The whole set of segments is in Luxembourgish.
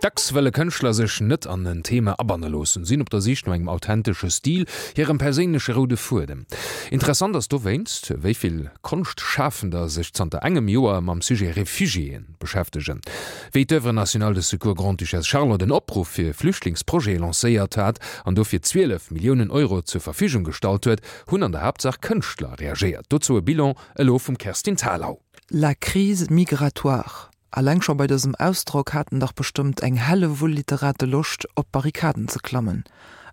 Dacks wëlle Kënschtler sech net an en Thema abanne loossen, sinn op der Sich no engem authentesche Stil, hirem perséinleche roude Fuedem. Interessant ass dowéinst, wéi vill Konschtschafender sech zanter engem Joer mam Sujet Refugiéen beschäftegen. Wéi d'Oeuvre nationale de secours Grande-Duchesse Charlotte en Opruff fir Flüchtlingsprojete lancéiert hat an dofir 12 Milliounen Euro zur Verfügung gestallt huet, hunn an der Haaptsaach Kënschtler reagéiert. Dozou e Bilan elo vum Kerstin Thalau. La crise migratoire, Alleng scho bei dësem Ausdrock haten dach bestëmmt eng Hellewull Literate Loscht, op d'Barrikaden ze klammen.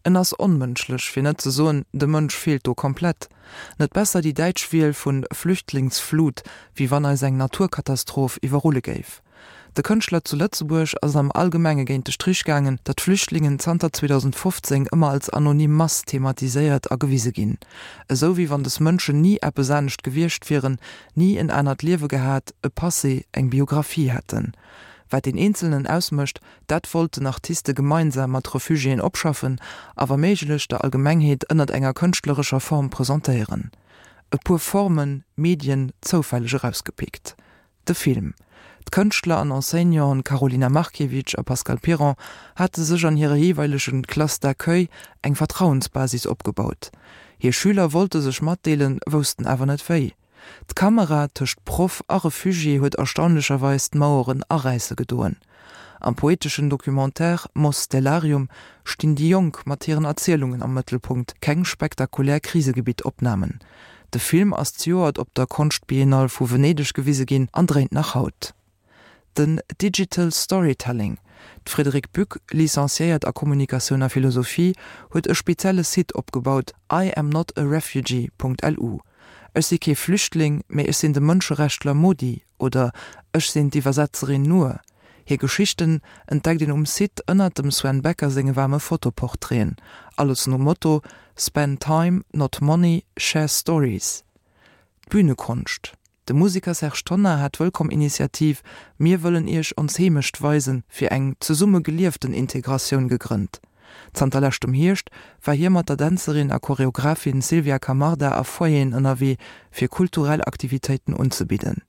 En ass onmënschlech, fir net ze soen, de Mënsch feelt do komplett. Net besser déi däitsch Wiel vun Flüchtlingsflut, wéi wann eis eng Naturkatastroph iwwerrulle géif. De Kënschtler zu Lëtzebuerg ass et am Allgemenge géint de Strich gaangen, datt Flüchtlingen zanter 2015 ëmmer als anonym Mass thematiséiert a gewise ginn. Esou wéi wann des Mënschen ni eppes anescht gewiescht wieren, ni en anert Liewe gehat, e Passé, eng Biographie hätten. Wat deen Eenzelnen ausmécht, dat wollten Artiste gemeinsam mat Refugiéen opschaffen a wa méiglech der Allgemengheet ënnert enger kënschtlerescher Form presentéieren. E puer Formen, Medien zoufälleg erausgepickt. De Film. D'Kënschtler an Enseignanten Karolina Markiewicz a Pascal Piron hate sech an hire jeeweilegen Classes d'accueil eng Vertrauensbasis opgebaut. Hir Schüler wollte sech matdeelen, woussten awer net wéi. D'Kamera tëscht Proff a Refugié huet erstaunlecherweis d'Maueren aräisse gedoen. Am poeteschen Documentaire Mos Stellarium stinn déi Jonk mat hiren Erzielungen am Mëttelpunkt, keng spektakulär Krisegebitt-Opnamen. De Film ass zejoert op der Konschtbiennale vu Venedeg gewise ginn an dréint nach haut. Den Digital Storytelling, D'Frédérique Buck, licenciéiert a Kommunikatioun a Philosophie, huet e spezielle Site opgebaut, IamNotARefugee.lu. Ech si kee Flüchtling, mee ech sinn de Mënscherechtler Modi oder ech sinn d'Iwwersetzerin Nour. Hir Geschichten entdeckt een um Site ënnert dem Sven Becker senge waarme Fotoportraiten. Alles nom Motto Spend time, not money, share stories. D'Bühnekonscht. De Museker Serge Tonnar hat d'Wëllkomm-Initiativ Mir wëllen Iech ons Heemecht weisen fir eng zesumme gelieften Integratioun gegrënnt. Zanter leschtem Hierscht war hie mat der Dänzerin a Choreographin Sylvia Camarda a Foyeren ënnerwee fir kulturell Aktivitéiten unzebidden.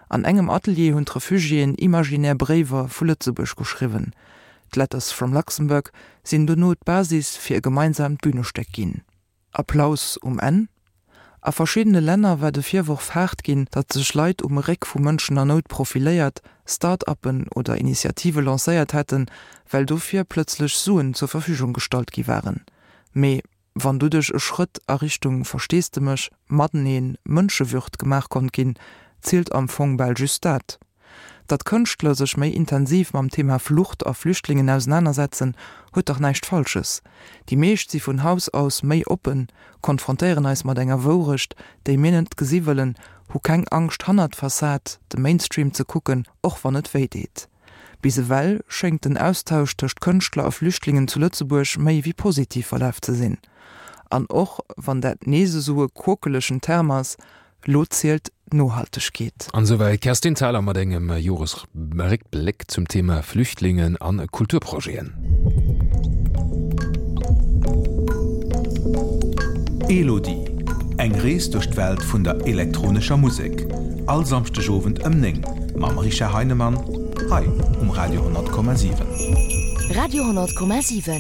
An engem Atelier hunn d'Refugiéen imaginär Bréiwer vu Lëtzebuerg geschriwwen. D'Letters from Luxembourg sinn dono d'Basis fir e gemeinsaamt Bünestéck ginn. Applaus um Enn? A verschiddene Länner war de Virworf haart ginn, datt sech Leit um Réck vu Mënschen a Nout profiléiert, Start-uppen oder Initiative lancéiert hätten, well dofir plëtzlech Suen zur Verfügung gestallt gi waren. Mee wann doduerch e Schrëtt a Richtung Versteesdemech, Mateneen, Mënschewürd gemaach konnt ginn, zielt am Fong bal just dat. Datt Kënschtler sech méi intensiv mam Thema Flucht a Flüchtlingen ausenanersetzen, huet dach näischt Falsches. Déi meescht si vun Haus aus méi oppen, konfrontéieren eis mat enger Wourecht, déi mir net gesi wëllen, hu keng Angscht hannert d'Fassad, de Mainstream ze kucken, och wann et wéi deet. Bis ewell schéngt den Austausch tëscht Kënschtler a Flüchtlingen zu Lëtzebuerg méi wéi positiv verlaf ze sinn. An och wann dat nees esou e quokelegen Term ass, Lo zielt d'Nohaltegkeet. An esouwäit d'Kerstin Thalau mat engem Joresréckbléck zum Thema Flüchtlingen an Kulturprojeten. Elodie, Eng Rees duerch d'Welt vun der elektronescher Musek, all Samschdegowend ëm 9 mam Richard Heinemann hei um Radio 10,7. Radio 10,7.